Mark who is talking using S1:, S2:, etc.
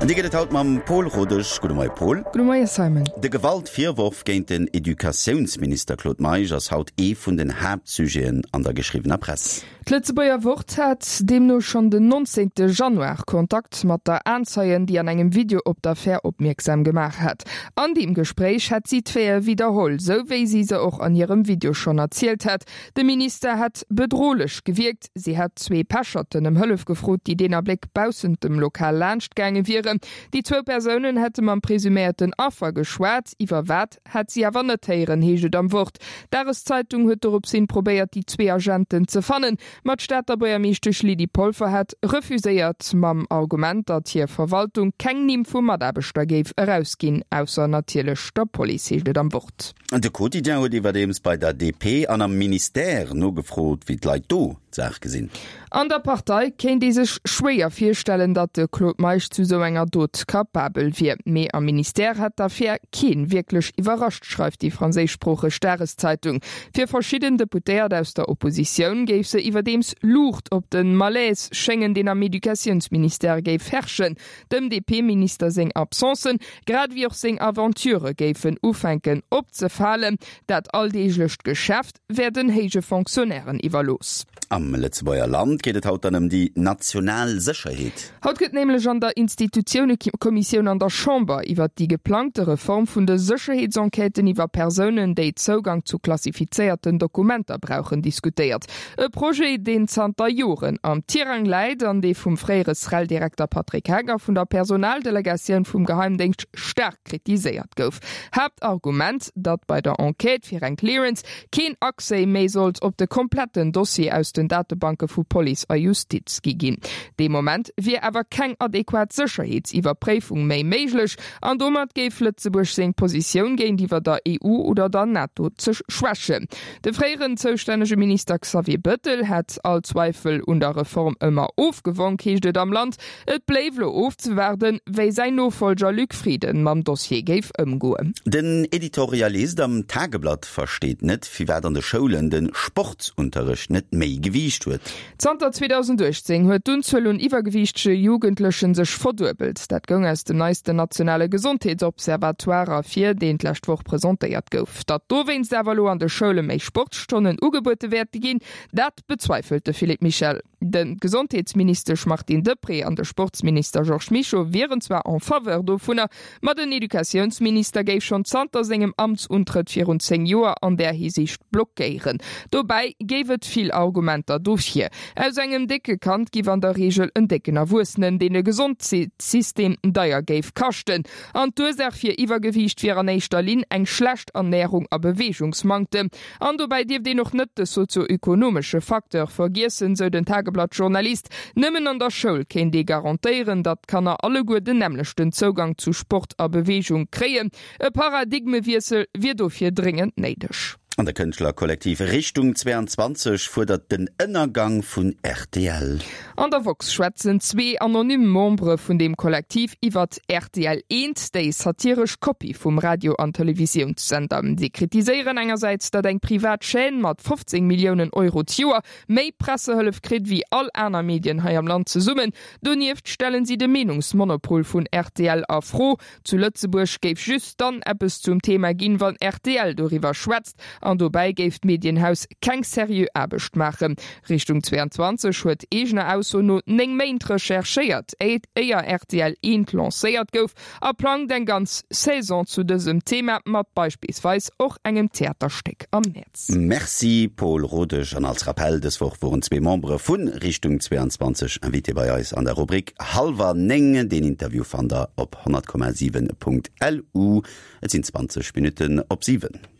S1: An déi gëtt et haut mam Pol Rodesch. Gudde Moie Pol.
S2: Gudde Moie Simon.
S1: De Gewaltvirworf géint den Educatiounsminister Claude Meisch ass haut ee vun den Haaptsujeten an der geschriwwener Press.
S2: D'Lëtzebuerger Wort hat deemno schonn den 19 Januar Kontakt mat der Aenzeien, déi an engem Video op d'Affär opmierksam gemaach hat. An deem Gespréich hätt si d'Faite widderholl, sou wéi si se och an hirem Video schonn erzielt hat. De Minister hätt bedrohlech gewierkt. Si hätt zwee Pecherten ëm Hëllef gefrot, déi deen Abléck baussent dem Lokal laanscht gaange wieren. Déi zwou Persounen hätte mam presuméierten Affer geschwat. Iwwer wat, hätt si awer net héieren, heescht et am Wort. D'Dageszeitung huet dorops hin probéiert, déi zwee Agenten ze fannen, ma d'Stater Buergermeeschtesch Lydie Polfer hätt refuséiert, mam Argument, datt hir Verwaltung keng Nimm vu Mataarbechter géif erausginn, ausser natierlech der Police, heescht et am Wort.
S1: De Quotidien huet iwwerdeems bei der DP an am Ministère nogefrot, wéi d'Leit do d'Saach gesinn.
S2: An der Partei kéint ee sech schwéier virstellen, datt de Claude Meisch zu sou enger Dot capabel wier. Mee am Ministère hätt d'Affär keen wierklech iwwerrascht, schreift déi franséischsproocheg Dageszeitung. Fir verschidden Deputéiert aus der Oppositioun géif se iwwerdeems Luucht op de Malaise schéngen, deen am Educatiounsministère géif herrschen. Dem DP-Minister seng Absencen, grad ewéi och seng Aventurë géifen ufänken opzefalen. Dat alldeeglecht Geschäft wär den héije Fonctionnairen iwwerlooss.
S1: Am Lëtzebuerger Land geet et haut dann ëm déi national Sécherheet.
S2: Haut gëtt nämlech an der Institutiounekommissioun an der Chamber iwwert déi geplangte Reform vun de Sécherheetsenquêten iwwer Persounen, déi Zougang zu klassifizéierten Dokumenter brauchen, diskutéiert. E Projet, deen zanter Joren am Tirang läit an dee vum fréiere SREL-Direkter Patrick Heck a vun der Personaldelegatioun vum Geheimdéngscht staark kritiséiert gouf. Haaptargument, datt bei der Enquête fir eng Clearance keen Accès méi sollt op de kompletten Dossier aus den Datebanke vu Police a Justiz gi ginn. Dee Moment wier awer keng adequat Sécherheetsiwwerpréifung méi méiglech an domat géif Lëtzebuerg seng Positioun géintiwwer der EU oder der NATO ze schwächen. De fréieren zoustännege Minister Xavier Bëttel hätt all Zweifel un der Reform ëmmer ofgewonk, heescht et am Land. Et bléif elo ofzewaarden, wéi säin Nofollger Luc Frieden mam Dossier géif ëmgoen.
S1: Den Editorialist am Tageblatt versteet net, firwat an de Schoulen de Sportsunterrecht net méi Gewiicht huet.
S2: Zanter 2018 huet d'Unzuel un iwwergewiichtege Jugendlechen sech verduebelt. Dat goung aus dem neisten nationale Gesondheetsobservatoire ervir, deen d'lescht Woch presentéiert gouf. Datt dowéinst awer elo an de Schoule méi Sportsstonnen ugebuede wäerte ginn, dat bezweifelt de Philippe Michel. De Gesondheetsministesch Martine Deprez an de Sportsminister Georges Mischo wieren zwar en faveur dovunner, Ma den Educatiounsminister géif schonn zanter sengem Amtsuntrëtt virun 10 Joer an där Hisiicht blockéieren. Dobäi géif et vill Argumenter dofir. Aus engem décke Kand giff an der Reegel en décken Erwuessenen, deen de Gesondheetssystem deier géif kaschten. An d'Ursaach fir Iwwergewiicht wier an éischter Linn eng schlecht Ernärung a Beweegungsmanktem. An dobäi dierft een och net de sozio-ökonomesche Facteur vergiessen, sou den Tageblatt-Journalist. Nëmmen an der Schoul kéint ee garantéieren, datt d'Kanner alleguer den nämmlechten Zougang zu Sport a Beweegung kréien. E Paradigmewiessel wier dofir dréngend néideg.
S1: An de Kënschtlerkollektiv Richtung 22 fuerdert den Ënnergang vun rtl.
S2: An der woxx schwätzen zwee anonym Membere vun deem Kollektiv iwwert rtl Eent, déi satiresch Kopie vum Radio an Televisiounssender. Si kritiséieren engersäits, datt eng privat Chaîne mat 15 Milliounen Euro d'Joer méi Pressehëllef kritt wéi all aner Medien hei am Land zesummen. Donieft stellen si de Meenungsmonopol vun rtl a Fro. Zu Lëtzebuerg géif just dann eppes zum Thema ginn, wann rtl doriwwer schwätzt, an dobäi géif d'Medienhaus keng seriö Aarbecht maachen. Richtung 22 huet eegener Ausso no 9 Méint recherchéiert, éier rtl Eent lancéiert gouf, a plangt eng ganz Saison zu dësem Thema, mat beispillsweis och engem Theaterstéck am Mäerz.
S1: Merci Paul Rodesch. An als Rappell, dës Woch woren zwee Membere vu Richtung 22 Invité bei eis an der Rubrik Hallwer 9. Deen Interview fannt der op 100,7.lu. Et sinn 20 Minutten op 7.